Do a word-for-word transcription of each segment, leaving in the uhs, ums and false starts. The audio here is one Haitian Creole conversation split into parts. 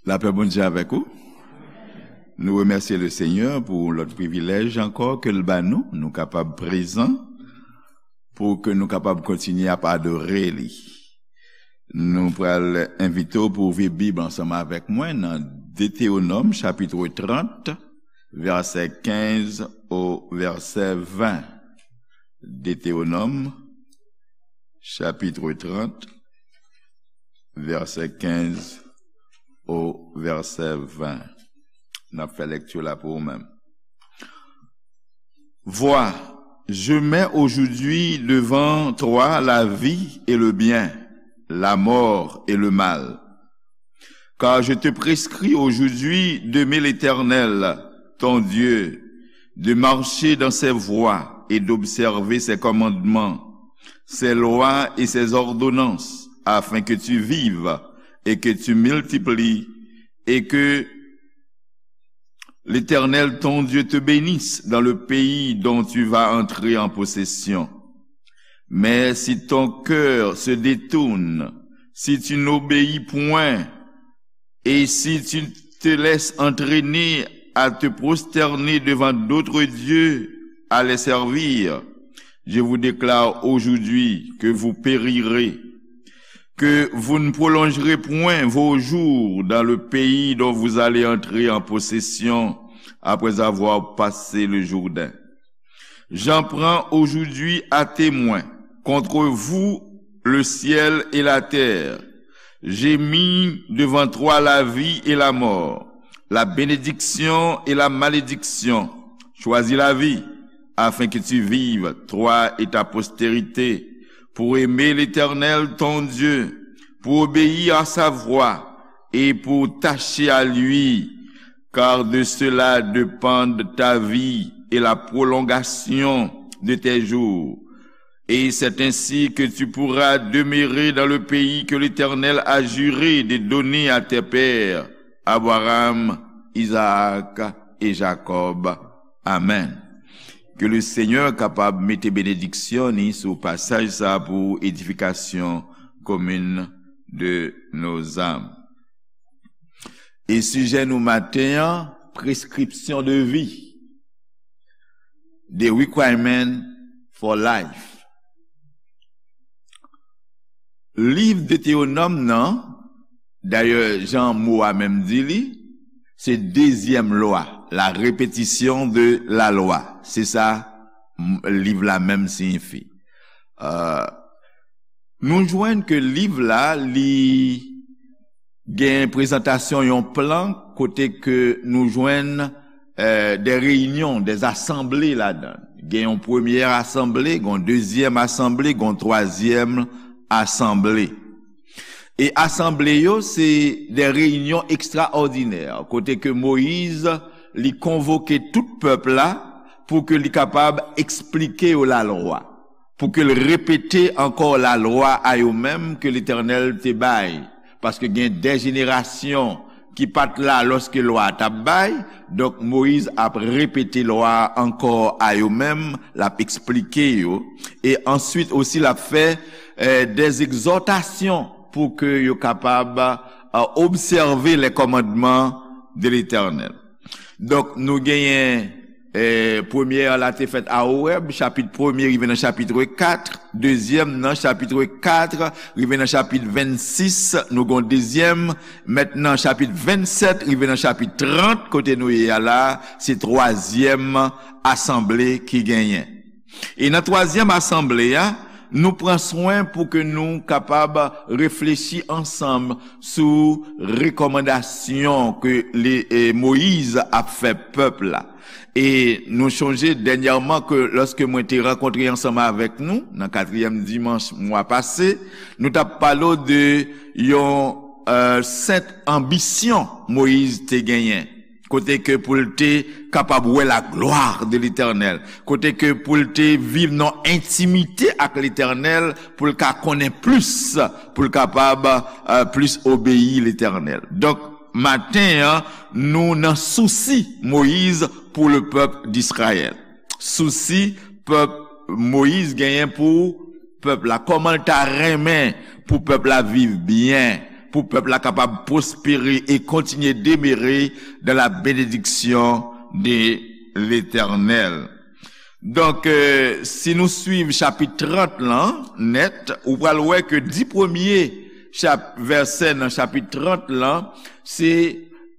Lapè Bondye avèk ou. Nou remèsye le Senyè pou lòt privilèj ankò ke l ba nou. Nou kapab prezan pou ke nou kapab kontinye ap adore li. Nou pral envite w pou w ouvri Bib ansanm avèk mwen nan Detewonòm chapit trant, vèsè kenz o vèsè ven. Detewonòm chapit trant, vèsè kenz o vèsè ven. N ap fè lèkti la pou ou menm. Vois, je mets aujourd'hui devant toi la vie et le bien, la mort et le mal. Car je te prescris aujourd'hui d'aimer l'Éternel, ton Dieu, de marcher dans ses voies et d'observer ses commandements, ses lois et ses ordonnances, afin que tu vives et que tu multiplies, et que l'Éternel ton Dieu te bénisse dans le pays dont tu vas entrer en possession. Mais si ton cœur se détourne, si tu n'obéis point, et si tu te laisses entraîner à te prosterner devant d'autres dieux, à les servir, je vous déclare aujourd'hui que vous périrez, que vous ne prolongerez point vos jours dans le pays dont vous allez entrer en possession après avoir passé le Jourdain. J'en prends aujourd'hui à témoin contre vous le ciel et la terre. J'ai mis devant toi la vie et la mort, la bénédiction et la malédiction. Choisis la vie, afin que tu vives, toi et ta postérité, pour aimer l'Éternel ton Dieu, pour obéir à sa voix et pour t'attacher à lui, car de cela dépendent ta vie et la prolongation de tes jours. Et c'est ainsi que tu pourras demeurer dans le pays que l'Éternel a juré de donner à tes pères, Abraham, Isaac et Jacob. Amen. Ke le Senyè kapab mete benediksyon ni sou pasaj sa pou edifikasyon komin de nos âmes. E sijè nou maten an, prescription de vie, the requirement for life. Liv Detewonòm nan, dayè jan mo a menm di li, se dezyèm lwa, la répétition de la loi. Se sa m- liv la menm siyifi. Euh, nou jwenn ke liv la, li gen prezantasyon yon plan kote ke nou jwenn euh, des réunions, des assemblées ladan. Gen yon premyè asanble, gen yon dezyèm asanble, gen yon twazyèm asanble. E asanble yo, se des réunions extraordinaires, kote ke Moyiz, li konvoke tout pèp la pou ke li kapab eksplike yo lalwa, pou ke l repete ankò lalwa a yo menm ke Letènèl te bay. Paske gen de jenerasyon ki pa t la lòske lwa a t ap bay. Donk, Moyiz ap repete lwa a ankò a yo menm, l ap eksplike yo. E answit osi, l ap fè euh, des exhortations pou ke yo kapab euh, obsève les commandements de l'Éternel. Donk, nou genyen eh, premyè a la te fèt a Orèb, chapit premye rive nan chapit kat, dezyèm nan chapit kat rive nan chapit vennsis, nou gon dezyèm, mentnan chapit vennsèt rive nan chapit trant, kote nou ye a la, se twazyèm asanble ki genyen. E nan twazyèm asanble a, nou pran swen pou ke nou kapab reflechi ansanm sou rekòmandasyon ke le, eh, Moyiz ap fè pèp la. E nou chonje dènyèman ke lòske mwen te rankontre ansanm avèk nou, nan katriyèm dimanch mwa pase, nou t ap pale w de yon euh, sent anbisyon Moyiz te genyen. Kote ke pou l te kapab wè la gloire de l'Éternel. Kote ke pou l te viv nan entimite ak Letènèl, pou l ka konnen plis, pou l kapab euh, plis obeyi Letènèl. Donk, maten an, nou nan sousi Moyiz pou le pèp d'Israyèl. Sousi pèp Moyiz genyen pou pèp la. Kòman l ta renmen pou pèp la viv byen, pou pèp la kapab pwospere e kontinye demere dans la bénédiction de l'Éternel. Donk, euh, si nou swiv chapit trant lan nèt, ou pral wè ke dis premye chap-, vèsè nan chapit trant lan, se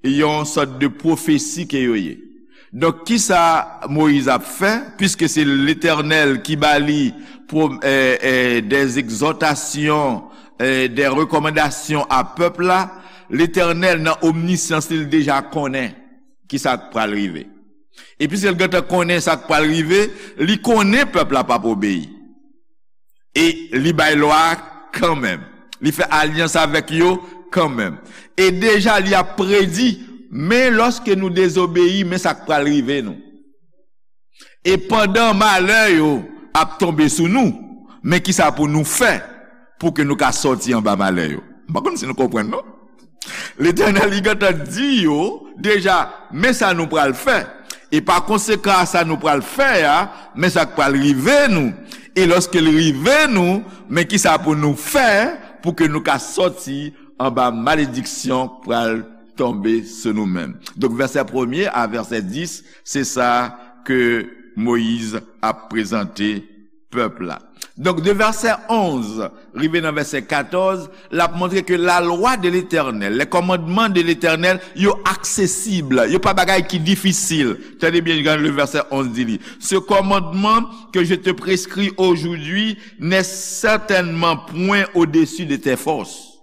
yon sòt de pwofesi ke yo ye. Donk, kisa Moyiz ap fè? Piske se Letènèl ki ba li pwo-, eh, eh, des exhortations, eh, des recommandations a pèp la, Letènèl nan omnisyans li deja konnen kisa k pral rive. E piske l gentan konnen sa k pral rive, li konnen pèp la p ap obeyi. E li bay lwa a kanmenm. Li fè alyans avèk yo kanmenm. E deja li ap predi, men lòske nou dezobeyi, men sa k pral rive nou. E pandan malè yo ap tonbe sou nou, men kisa pou nou fè pou ke nou ka sòti anba malè yo? M pa konn si nou konprann, non? Letènèl, li gentan di yo deja, men sa nou pral fè. E pa konsekan a sa nou pral fè a, men sa k pral rive nou. E lòske l rive nou, men kisa pou nou fè pou ke nou ka sòti anba malediksyon k pral tonbe sou nou menm? Donk, vèsè premye a vèsè dis, se sa ke Moyiz ap prezante pèp la. Donk, de vèsè onz rive nan vèsè katòz, l ap montre ke la lwa de Letènèl, les commandements de l'Éternel, yo aksesib, yo pa bagay ki difisil. Tande byen, gade le verset onze di li. Ce commandement que je te prescris aujourd'hui n'est certainement point au-dessus de tes forces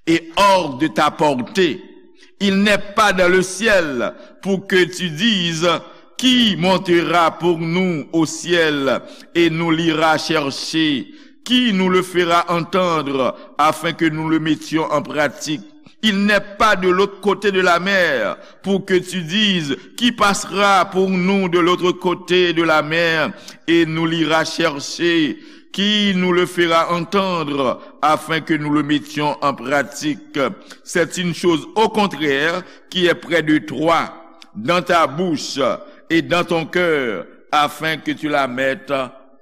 et hors de ta portée. Il n'est pas dans le ciel pour que tu dises, qui montera pour nous au ciel et nous l'ira chercher? Qui nous le fera entendre afin que nous le mettions en pratique? Il n'est pas de l'autre côté de la mer pour que tu dises, qui passera pour nous de l'autre côté de la mer et nous l'ira chercher? Qui nous le fera entendre afin que nous le mettions en pratique? C'est une chose au contraire qui est près de toi, dans ta bouche et dans ton cœur, afin que tu la mettes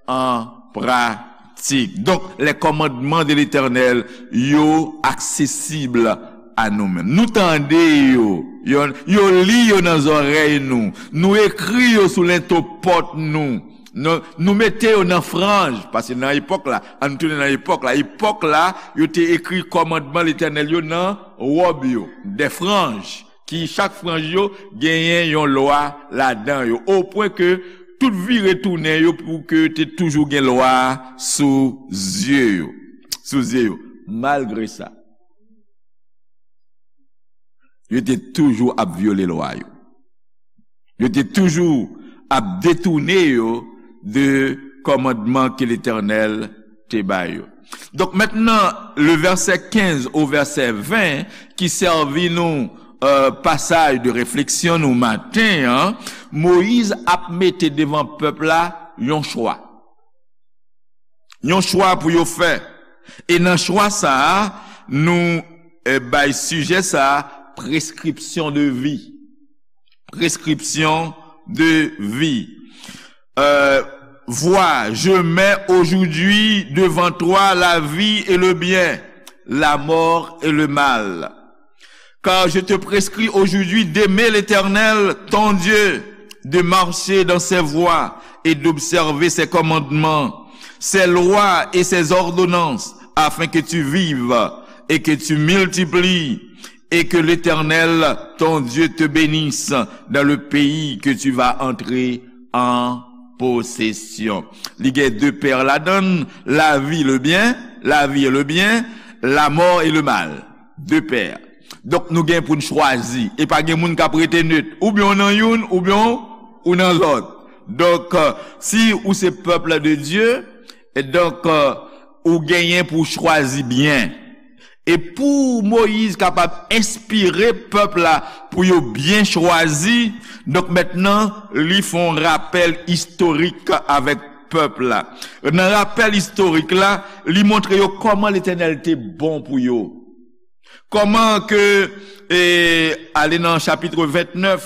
en pratique. Donk, les commandements de l'Éternel, yo aksesib a nou menm. Nou tande yo, yo, yo li yo nan zòrèy nou, nou ekri yo sou lento pòt nou, nou, nou mete yo nan franj, paske nan epòk la, ann tounen nan epòk la, epòk la, yo te ekri kòmandman Letènèl yo nan wòb yo, des franges, ki chak franj yo genyen yon lwa ladan yo, o pwen ke tout vire tounen yo pou ke te toujou gen lwa sou zye yo, sou zye yo. Malgre sa, yo te toujou ap vyole lwa yo. Yo te toujou ap detounen yo de kòmandman ke Letènèl te ba yo. Donk, mentnan, le verset quinze au verset vingt ki sèvi nou, euh, pasaj de refleksyon nou maten an, Moyiz ap mete devan pèp la yon chwa. Yon chwa pou yo fè. E nan chwa sa a, nou, eh, bay sijè sa a, prescription de vie. Prescription de vie. Euh, vois, je mets aujourd'hui devant toi la vie et le bien, la mort et le mal. Car je te prescris aujourd'hui d'aimer l'Éternel, ton Dieu, de marcher dans ses voies et d'observer ses commandements, ses lois et ses ordonnances, afin que tu vives et que tu multiplies, et que l'Éternel, ton Dieu, te bénisse dans le pays que tu vas entrer en possession. Li gen de pè ladan l, la vie, le bien, la vie et le bien, la mort et le mal. De pè. Donk, nou gen pou n chwazi. E pa gen moun k ap rete net. Oubyen w nan youn, oubyen w, ou nan lòt. Donk, euh, si ou se pèp de Dye, e donk, euh, ou genyen pou w chwazi byen. E pou Moyiz kapab enspire pèp la pou yo byen chwazi, donk mentnan, li fè yon rapèl istorik avèk pèp la. Nan rapèl istorik la, li montre yo kòman Letènèl te bon pou yo. Kòman ke, e, ale nan chapit vennèf,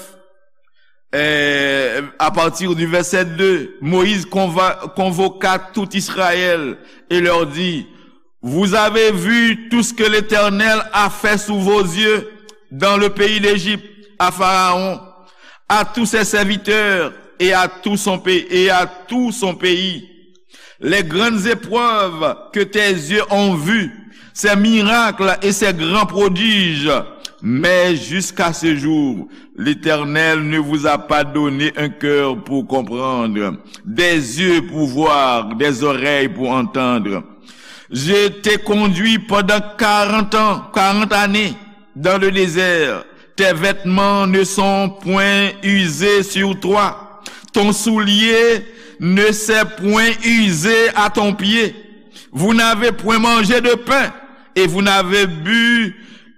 e, à partir du verset deux, Moïse conva-, convoqua tout Israël et leur dit, Vous avez vu tout ce que l'Éternel a fait sous vos yeux dans le pays d'Égypte, à Pharaon, à tous ses serviteurs et à tout son pays, et à tout son pays. Les grandes épreuves que tes yeux ont vues, ces miracles et ces grands prodiges. Mais jusqu'à ce jour, l'Éternel ne vous a pas donné un cœur pour comprendre, des yeux pour voir, des oreilles pour entendre. Je t'ai conduit pendant quarante ans, quarante années dans le désert. Tes vêtements ne sont point usés sur toi. Ton soulier ne s'est point usé à ton pied. Vous n'avez point mangé de pain et vous n'avez bu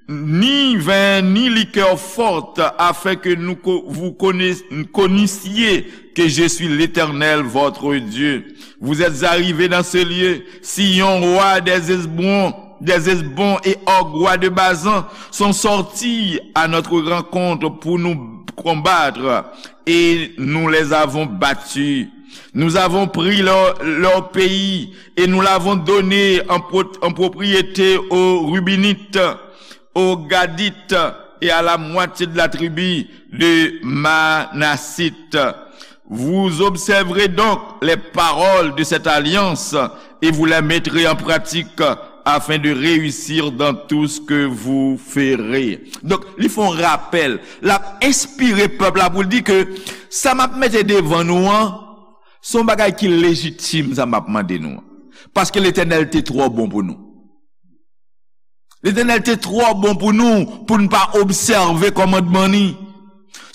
ni vin ni liqueur forte, afin que nous co-, vous connaiss-, connaissiez que je suis l'Éternel, votre Dieu. Vous êtes arrivés dans ce lieu, Sion, roi des Hesbons, des Hesbons et Og, roi de Basan, sont sortis à notre rencontre pour nous combattre, et nous les avons battus. Nous avons pris leur, leur pays et nous l'avons donné en pro-, en propriété aux Rubénites, aux Gadites et à la moitié de la tribu de Manassite. Vous observerez donc les paroles de cette alliance et vous les mettrez en pratique afin de réussir dans tout ce que vous ferez. Donk, li fè yon rapèl. L ap enspire pèp la pou l di ke sa m ap mete devan nou an, se yon bagay ki lejitim, sa m ap mande nou an. Paske Letènèl te twò bon pou nou. Letènèl te twò bon pou nou, pou n pa obsève kòmandman ni.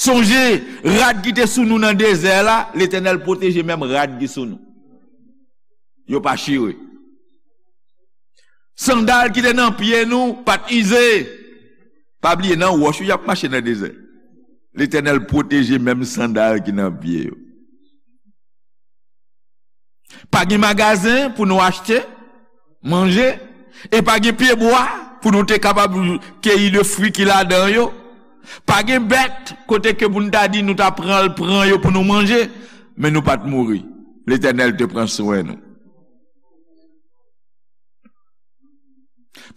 Sonje, rad ki te sou nou nan dezè la, Letènèl pwoteje menm rad ki sou nou. Yo pa chire. Sandal ki te nan pye nou pa t ize. Pa bliye, nan wòch wi y ap mache nan dezè. Letènèl pwoteje menm sandal ki nan pye yo. Pa gen magazen pou nou achte manje, e pa gen pyebwa pou nou te kapab keyi de fwi ki ladan yo. Pa gen bèt kote ke pou n ta di nou ta pran l, pran yo pou nou manje, men nou pa t mouri. Letènèl te pran swen nou.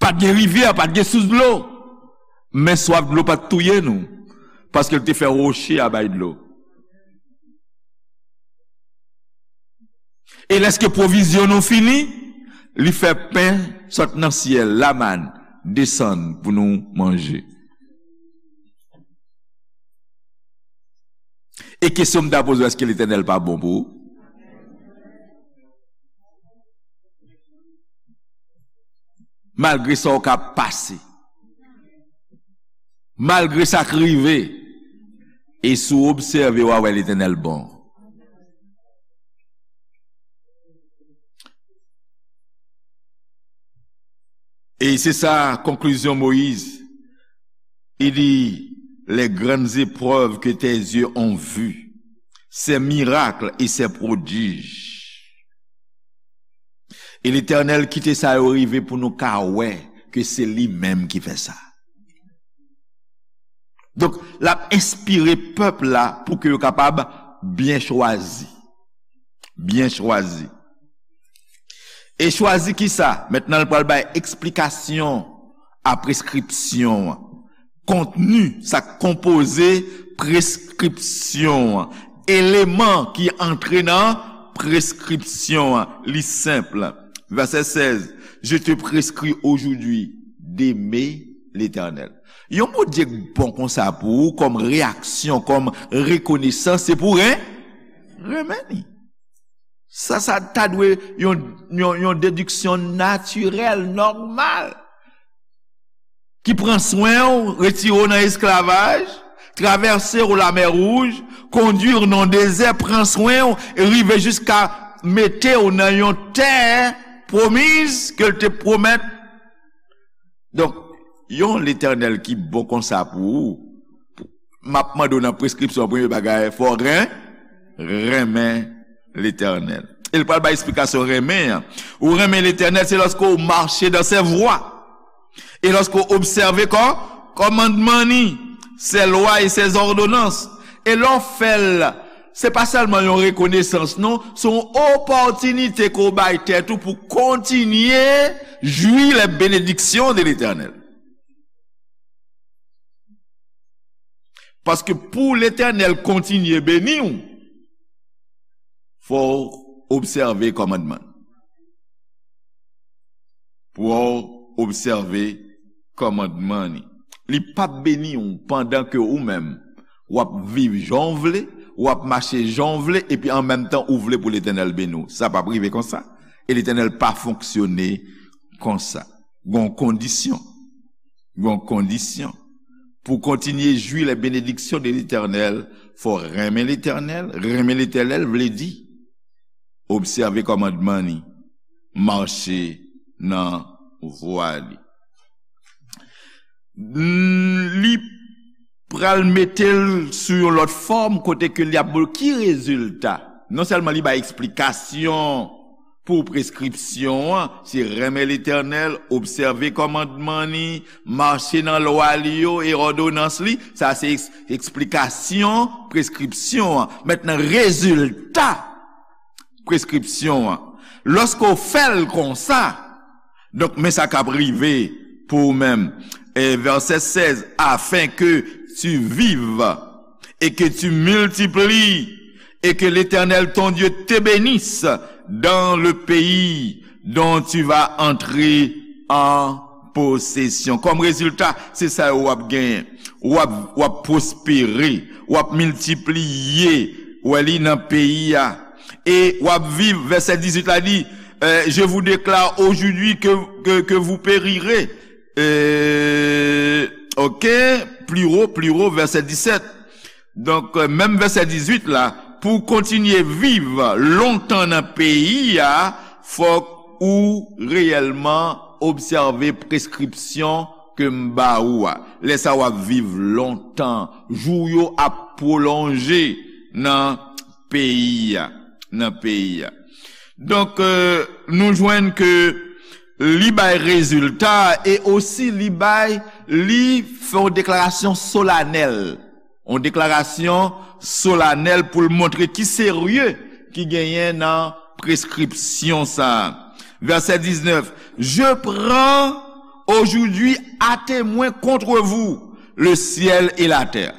Pa t gen rivyè, pa t gen sous dlo. Men swaf dlo pa t touye nou, paske l te fè woche a bay dlo. E lèske pwovizyon nou fini, li fè pen sot nan syèl, lamàn, desann pou nou manje. E kesyon m ta poze w, èske Letènèl pa bon pou ou? Malgre sa w ka pase, malgre sa k rive, e si w obsève, w a wè Letènèl bon. E se sa konklizyon Moyiz. Il dit, les grandes épreuves que tes yeux ont vues, ces miracles et ces prodiges. E Letènèl kite sa yo rive pou nou ka wè ke se li menm ki fè sa. Donk, l ap enspire pèp la pou ke yo kapab byen chwazi. Byen chwazi. E chwazi kisa? Mentnan, l pral bay eksplikasyon a preskripsyon an. Kontni, sa k konpoze preskripsyon an. Eleman ki antre nan preskripsyon an. Li senp. Vèsè sèz, je te prescris aujourd'hui d'aimer l'Éternel. Yon Bondye k bon konsa pou ou, kòm reyaksyon, kòm rekonesans, se pou ren-, renmen li. Sa, sa ta dwe yon, yon, yon dediksyon natirèl, nòmal, ki pran swen w, retire w nan esklavaj, travèse w Lamè Wouj, kondwi w nan dezè, pran swen w, e rive jiska mete w nan yon tè pwomiz ke l te pwomèt. Donk, yon Letènèl ki bon konsa pou ou, m ap mande w nan preskripsyon, premye bagay, fò w ren-, renmen Letènèl. E l pral bay eksplikasyon renmen an. Ou renmen Letènèl, se lòske w mache dans ses voies. E lòske w obsève kò-, kòmandman ni, ses lois et ses ordonnances. E lè w fè l, Se pa sèlman yon rekonesans, non, se yon opòtinite ke w bay tèt ou pou kontinye jwi les bénédictions de Letènèl. Paske pou Letènèl kontinye beni w, fò w obsève kòmandman. Pou w obsève kòmandman li. Li p ap beni w pandan ke ou menm, w ap viv jan w vle, w ap mache jan w vle, epi an menm tan ou vle pou Letènèl beni w. Sa p ap rive konsa. E Letènèl pa fonksyone konsa. Gon kondisyon. Gon kondisyon. Pou kontinye jwi les bénédictions de Letènèl, fò renmen Letènèl. Renmen Letènèl vle di obsève kòmandman li, mache nan vwa li. Li pral mete l sou yon lòt fòm kote ke li ap, ki rezilta? Non sèlman li bay eksplikasyon pou preskripsyon an, se renmen Letènèl, obsève kòmandman li, mache nan lwa li yo e òdonans li, sa se eks-, eksplikasyon preskripsyon an. Mentnan, rezilta preskripsyon an. Lòske w fè l konsa, donk, men sa k ap rive pou ou menm. E vèsè sèz, afin que tu vives et que tu multiplies et que l'Éternel ton Dieu te bénisse dans le pays dont tu vas entrer en possession. Kòm rezilta, se sa yo w ap genyen. W ap, w ap pwospere, w ap miltipliye, w ap li nan peyi a. E w ap viv, vèsè dizuit la di, euh, je vous déclare aujourd'hui que, que, que vous périrez. Euh, ok, pli wo, pli wo, vèsè disèt. Donk, euh, menm vèsè dizuit la, pou w kontinye viv lontan nan peyi a, fòk ou reyèlman obsève preskripsyon ke m ba ou a. Lè sa w ap viv lontan, jou w yo ap pwolonje nan peyi a, nan peyi a. Donk, euh, nou jwenn ke li bay rezilta e osi li bay, li fè yon deklarasyon solanèl. Yon deklarasyon solanèl pou l montre ki serye ki genyen nan preskripsyon sa a. Vèsè diznèf, je prends aujourd'hui à témoin contre vous le ciel et la terre.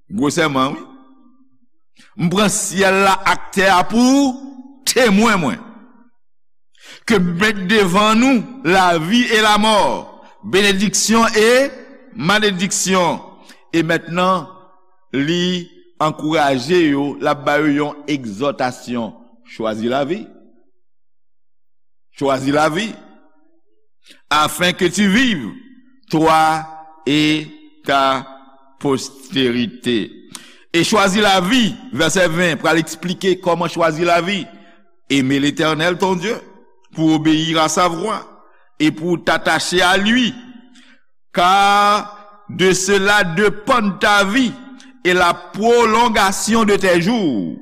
Gwo sèman, wi. M pran syèl la ak tè a pou temwen mwen. Ke m met devan nou lavi e lamò, benediksyon e malediksyon. E mentnan, li ankouraje yo, l ap ba yo yon egzòtasyon. Chwazi lavi. Chwazi lavi. Afin que tu vives, toi et ta postérité. E chwazi lavi, vèsè ven, pral eksplike kòman chwazi lavi. Aimer l'Éternel, ton Dieu, pour obéir à sa voix et pour t'attacher à lui, car de cela dépendent ta vie et la prolongation de tes jours.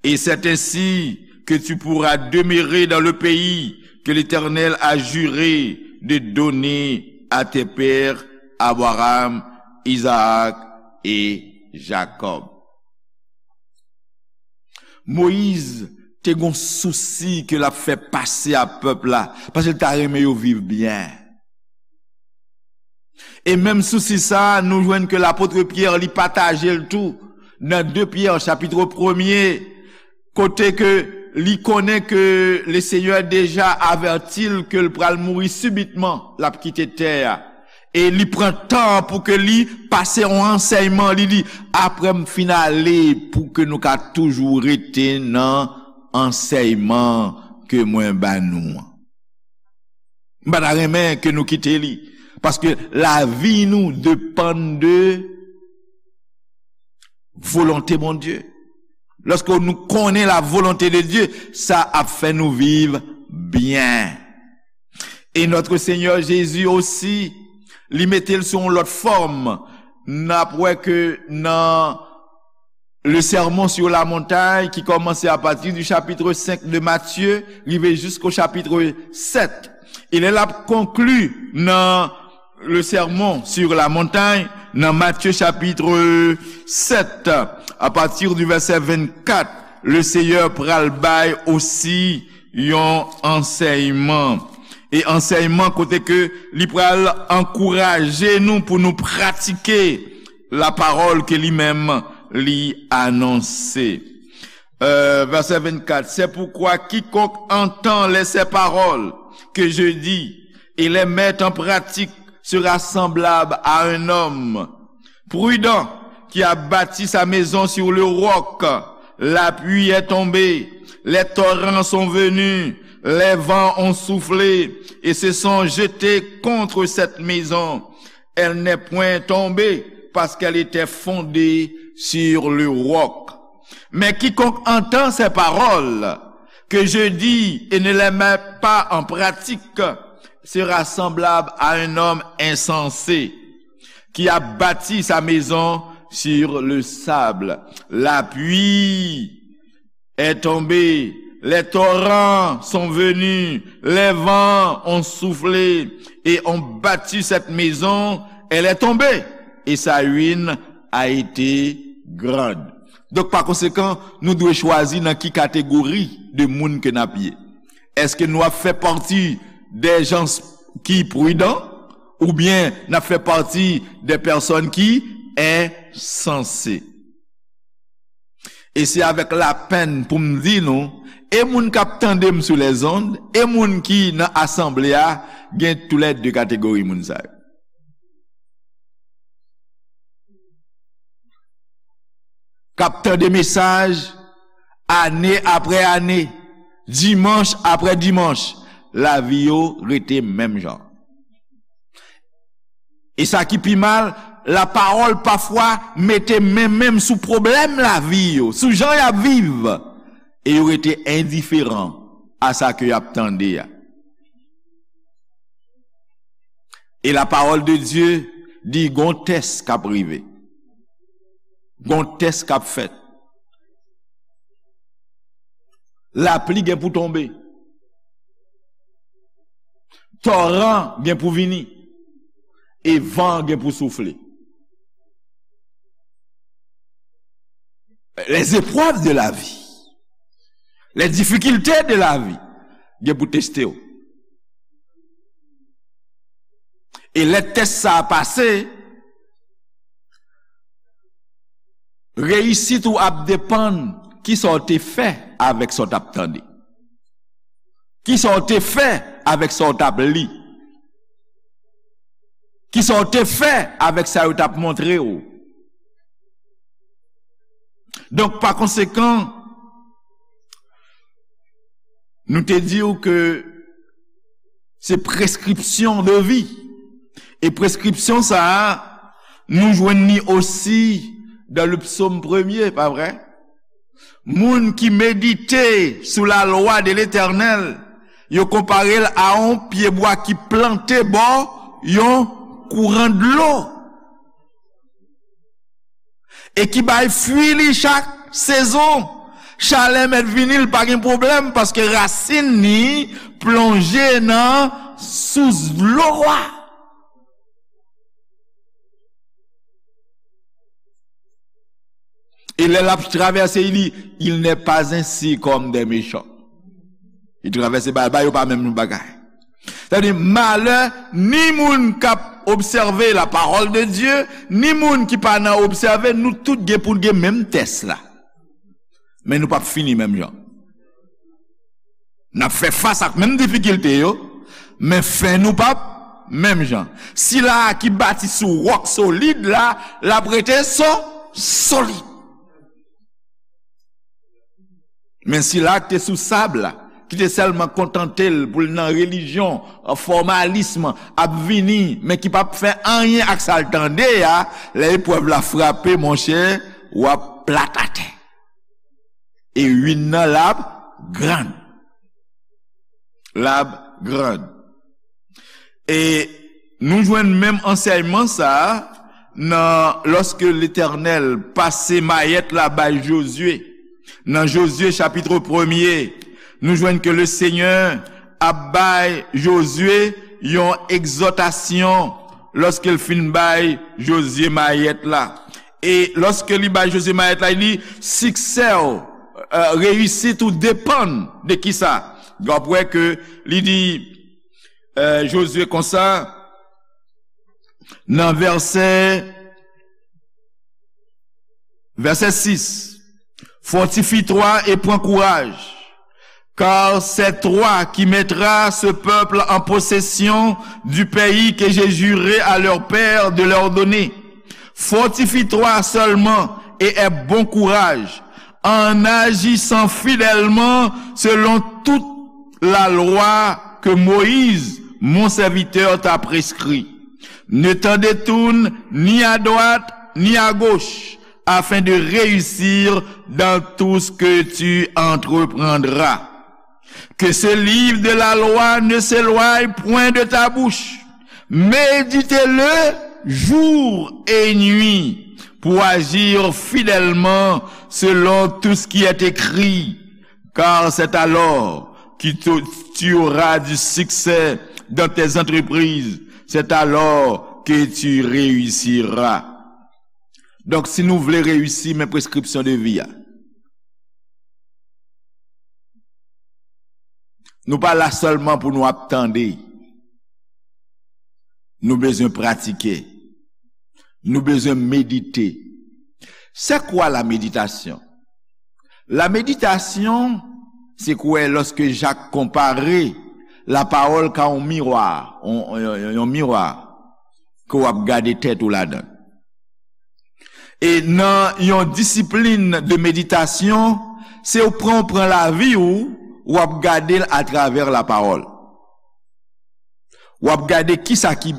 Et c'est ainsi que tu pourras demeurer dans le pays que l'Éternel a juré de donner à tes pères, Abraham, Isaac et Jacob. Moyiz te gon sousi ke l ap fè pase a pèp la, paske l ta renmen yo viv byen. E menm sousi sa a, nou jwenn ke lapot Pyè, li pataje l tou nan de Pyè, chapit premye, kote ke li konnen ke Lesenyè deja avèti l ke l pral mouri sibitman, l ap kite tè a. E li pran tan pou ke li pase yon ansèyman, li di, apre m fin ale, pou ke nou ka toujou rete nan ansèyman ke mwen ba nou an. M pa ta renmen ke nou kite li. Paske lavi nou depann de volonte Bondye. Lòske nou konnen la volonte de Dye, sa ap fè nou viv byen. E Notre Seigneur Jésus osi, li mete l sou yon lòt fòm. N ap wè ke nan le Sermon sur la Montagne, ki kòmanse apati di chapitre senk de Matye, rive jisko chapitre sèt. E lè l ap konkli nan le sermon sur la montagne, nan Matye chapit sèt, a pati di vèsè vennkat, le Seyè pral bay osi yon ansèyman. E ansèyman kote ke li pral ankouraje nou pou nou pratike lapawòl ke li menm li anonse. Euh, verset vingt-quatre, c'est pourquoi quiconque entend les, ces paroles que je dis et les met en pratique sera semblable à un homme prudent qui a bâti sa maison sur le roc. La pluie est tombée, les torrents sont venus, les vents ont soufflé et se sont jetés contre cette maison. Elle n'est point tombée parce qu'elle était fondée sur le roc. Mais quiconque entend ces paroles que je dis et ne les met pas en pratique sera semblable à un homme insensé qui a bâti sa maison sur le sable. La pluie est tombée, les torrents sont venus, les vents ont soufflé et ont battu cette maison, elle est tombée, et sa ruine a été grande. Donk, pa konsekan, nou dwe chwazi nan ki kategori de moun ke n ap ye. Èske nou ap fè pati de jan ki pridan, oubyen n ap fè pati de pèsòn ki ensanse? E se avèk lapenn pou m di nou, e moun k ap tande m sou lèzond, e moun ki nan asanble a, gen toulède kategori moun sa yo. K ap tande mesaj ane apre ane, dimanch apre dimanch, lavi yo rete menm jan. E sa ki pi mal, lapawòl pafwa mete men menm sou pwoblèm lavi yo, sou jan y ap viv, e yo rete endiferan a sa ke y ap tande a. E lapawòl de Dye di gon tès k ap rive. Gon tès k ap fèt. Lapli gen pou tonbe. Toran gen pou vini. E van gen pou soufle. Les épreuves de la vie, les difficultés de la vie, gen pou teste w. E lè tès sa a pase, reyisit ou ap depann kisa w te fè avèk sa w t ap tande. Kisa w te fè avèk sa w t ap li? Kisa w te fè avèk sa yo t ap montre w? Donk, pa konsekan, nou te di w ke se prescription de vie. E prescription sa a, nou jwenn li osi dans le psaume premier, pa vre? Moun ki medite sou la lwa de Letènèl, yo konpare l a yon pyebwa ki plante bò yon kouran dlo. E ki bay fwi li chak sezon. Chalè mèt vini, l pa gen pwoblèm, paske rasin li plonje nan sous dlo a. E lè l ap travèse, li, il n'est pas ainsi comme des méchants. Li travèse, ba, ba yo pa menm bagay. Sa vle di, malè ni moun k ap obsève la parole de Dieu, ni moun ki pa nan obsève, nou tout gen pou n gen menm tès la. Men nou p ap fini menm jan. N ap fè fas ak menm difikilte yo, men fen nou p ap menm jan. Sila a ki bati sou wòk solid la, l ap rete so-, solid. Men sila a ki te sou sab la, ki te sèlman kontante l pou l nan relijyon, fòmalism, ap vini, men ki p ap fè anyen ak sa l tande a, lè eprèv la frape, monchè, w ap plat atè. E ruin nan l ap gran. L ap gran. E nou jwenn menm ansèyman sa a nan, lòske Letènèl pase mayèt la bay Jozye. Nan Jozye chapit premye, nou jwenn ke le Senyè ap bay Jozye yon egzòtasyon, lòske l fin bay Jozye mayèt la. E lòske li bay Jozye mayèt la, li di, siksè w, euh, reyisit ou depann de kisa? W ap wè ke li di, euh, Jozye konsa, nan vèsè, vèsè sis, fortifie-toi et prends courage, car c'est toi qui mettras ce peuple en possession du pays que j'ai juré à leur père de leur donner. Fortifie-toi seulement et aie bon courage, en agissant fidèlement selon toute la loi que Moïse, mon serviteur, t'a prescrit. Ne t'en détourne ni à droite ni à gauche, afin de réussir dans tout ce que tu entreprendras. Que ce livre de la loi ne s'éloigne point de ta bouche. Médite-le jour et nuit pour agir fidèlement selon tout ce qui est écrit. Car c'est alors que tu, tu auras du succès dans tes entreprises. C'est alors que tu réussiras. Donk, si nou vle reyisi, men preskripsyon de vi a. Nou pa la sèlman pou nou ap tande. Nou bezwen pratike. Nou bezwen medite. C'est quoi la méditation? La méditation, se kwè lòske Jak konpare lapawòl ka yon miwa, yon, yon, yon, yon miwa ke w ap gade tèt ou ladan. E nan yon disiplin de meditasyon, se w pran, w pran lavi w, w ap gade l atravè lapawòl. W ap gade kisa ki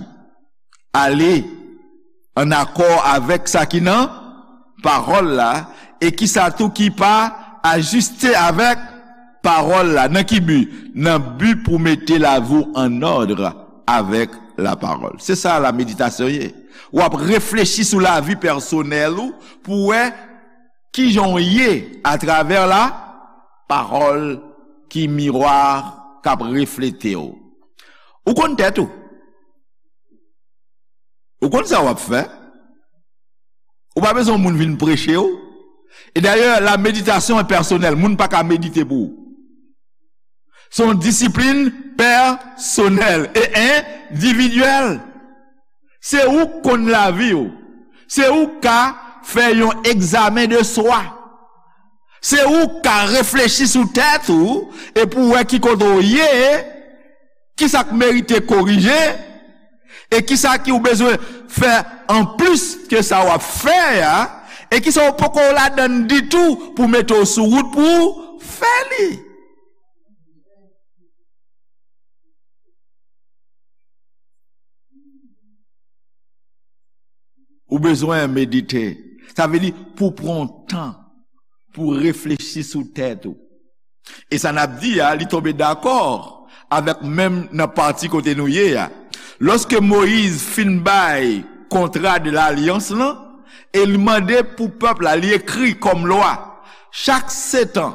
ale ann akò avèk sa ki nan pawòl la, e kisa tou ki pa ajiste avèk pawòl la. Nan ki bi? Nan bi pou mete lavi w an òd avèk lapawòl. Se sa la meditasyon ye. W ap reflechi sou lavi pèsonèl ou pou wè kijan w ye atravè lapawòl ki miwa k ap reflete w. Ou konn tèt ou. Ou konn sa w ap fè. Ou pa bezwen yon moun vin preche w. E dayè, la meditasyon e pèsonèl. Moun pa ka medite pou ou. Se yon disiplin pèsonèl e endividyèl. Se ou k konn lavi w. Se ou k ka fè yon egzamen de swa. Se ou k ka reflechi sou tèt ou e pou w wè ki kote w ye, kisa k merite korije, e kisa ki ou bezwen fè anplis ke sa w ap fè a, e kisa w poko ladann ditou pou mete w sou wout pou w fè li. Ou bezwen medite. Sa vle di pou pran tan, pou reflechi sou tèt ou. E sa n ap di a, li tonbe dakò avèk menm nan pati kote nou ye a. Lòske Moyiz fin bay kontra de lalyans lan, e li mande pou pèp la, li ekri kòm lwa, chak sèt an,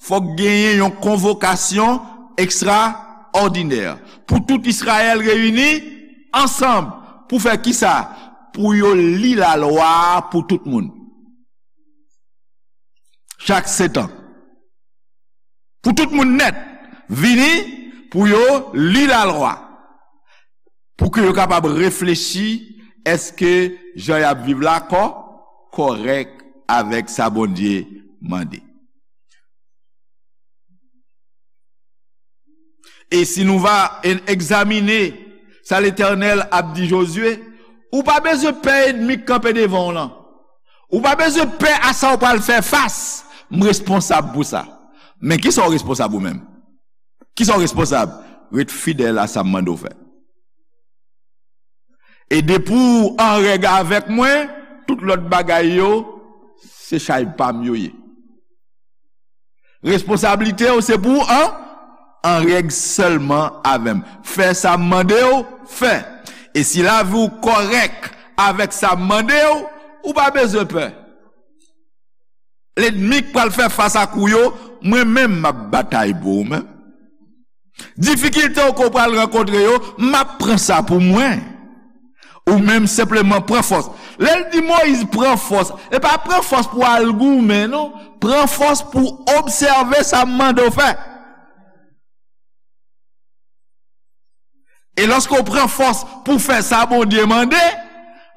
fòk genyen yon konvokasyon ekstraòdinè pou tout Izrayèl reyini ansanm pou fè kisa? Pou yo li lalwa a pou tout moun. Chak sèt an. Pou tout moun nèt vini pou yo li lalwa. Pou ke yo kapab reflechi, èske jan y ap viv la kò, kòrèk avèk sa Bondye mande? E si nou va en-, egzamine sa Letènèl ap di Jozye, ou pa bezwen pè ènmi k kanpe devan w lan. Ou pa bezwen pè a sa w pral fè fas. M responsab pou sa. Men kisa w responsab ou menm? Kisa w responsab? Ret fidèl a sa m mande w fè. E depi w an règ avèk mwen, tout lòt bagay yo, se chay pa m yo ye. Responsablite w se pou w an, an règ sèlman avè m. Fè sa m mande w fè. E si lavi w kòrèk avèk sa m mande w, ou pa bezwen pè. Lènmi k pral fè fas ak ou yo, mwen menm m ap batay pou ou menm. Difikilte w ke w pral rankontre yo, m ap pran sa pou mwen. Ou menm senpleman pran fòs. Lè l di Moyiz pran fòs, e pa pran fòs pou al goumen, non. Pran fòs pou obsève sa m mande w fè. E lòske w pran fòs pou fè sa Bondye mande,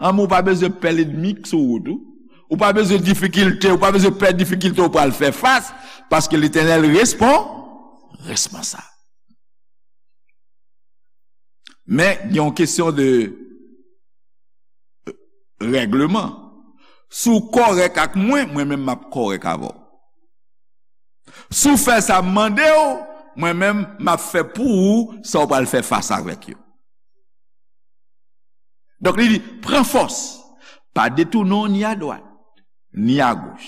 ann, ou pa bezwen pè lènmi k sou wout ou. Ou pa bezwen difikilte, ou pa bezwen pè difikilte w pral fè fas, paske Letènèl respon-, responsab. Men, gen yon kesyon de règleman. Si w kòrèk ak mwen, mwen menm m ap kòrèk avè w. Si w fè sa m mande w, mwen menm m ap fè pou ou sa w pral fè fas avèk yo. Donk, li di, pran fòs, pa detounen w ni adwat, ni agoch.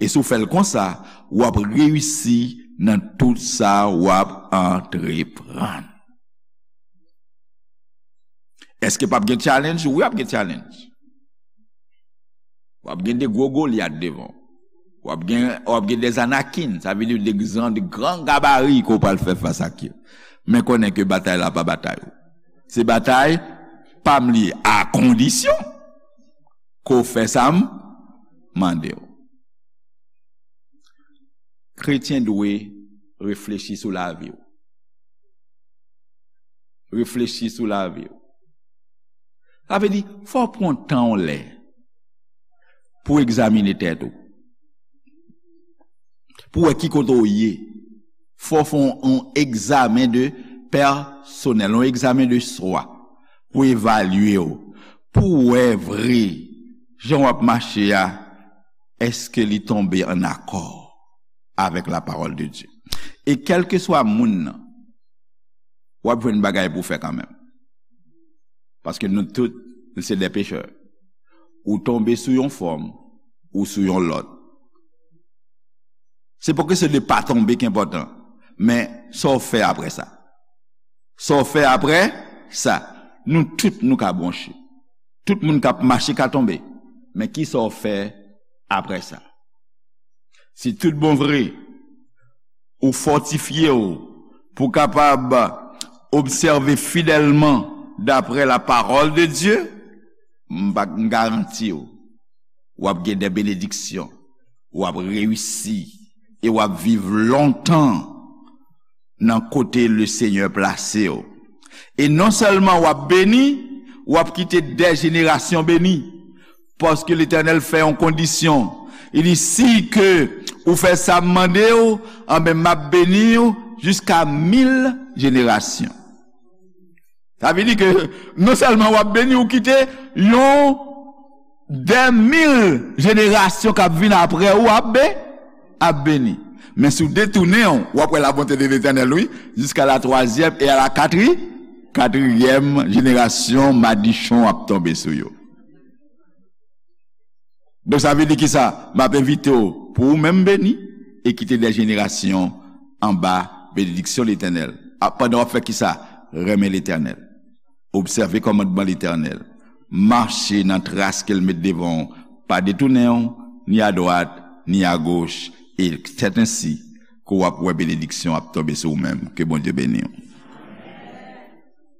E si w fè l konsa, w ap reyisi nan tout sa w ap antreprann. Èske p ap gen challenge? Wi, ap gen challenge. W ap gen de gwo Golyat devan w. W ap gen, w ap gen de Anakin, sa vle di de gran, de gran gabari ke w pral fè fas ak yo. Men konnen ke batay la pa batay ou. Se batay pa m li ye, a kondisyon ke w fè sa m mande w. Kretyen dwe reflechi sou lavi w. Reflechi sou lavi w. Sa vle di, fò w pran tan w lè pou w egzamine tèt ou. Pou w wè ki kote w ye. Fò w fè yon, yon egzamen de pèsonèl, yon egzamen de swa. Pou evalye w. Pou w wè vre, jan w ap mache a, èske li tonbe ann akò avèk la parole de Dieu? E kèlkeswa moun nan, w ap jwenn bagay pou w fè kanmenm. Paske nou tout, nou se de pechè. Ou tonbe sou yon fòm, ou sou yon lòt. Se pa kesyon de pa tonbe ki enpòtan, men sa w fè apre sa. Sa w fè apre sa. Nou tout, nou ka bwonche. Tout moun k ap mache ka tonbe. Men kisa w fè apre sa? Si tout bon vre, ou fòtifye w pou w kapab obsève fidèlman daprè la parole de Dieu, m pa, m garanti w, w ap gen de benediksyon, w ap reyisi, e w ap viv lontan nan kote Lesenyè plase w. E non sèlman w ap beni, w ap kite de jenerasyon beni. Paske Letènèl fè yon kondisyon. Li di, si ke ou fè sa m mande w, anben, m ap beni w jiska mil jenerasyon. Sa vle di ke non sèlman w ap beni, ou kite yon de mil jenerasyon k ap vin apre ou ap be-, ap beni. Men si w detounen w, w ap wè labonte de Letènèl, wi, jiska la twazyèm e a la katri-, katriyèm jenerasyon, madichon ap tonbe sou yo. Donk, sa vle di kisa? M ap envite w pou ou menm beni e kite de jenerasyon anba benediksyon Letènèl. A, pandan w ap fè kisa? Renmen Letènèl. Obsève kòmandman Letènèl. Mache nan tras ke l met devan w. Pa detounen w, ni adwat, ni agoch. E sètensi ke w ap wè benediksyon ap tonbe sou ou menm. Ke Bondye beni w.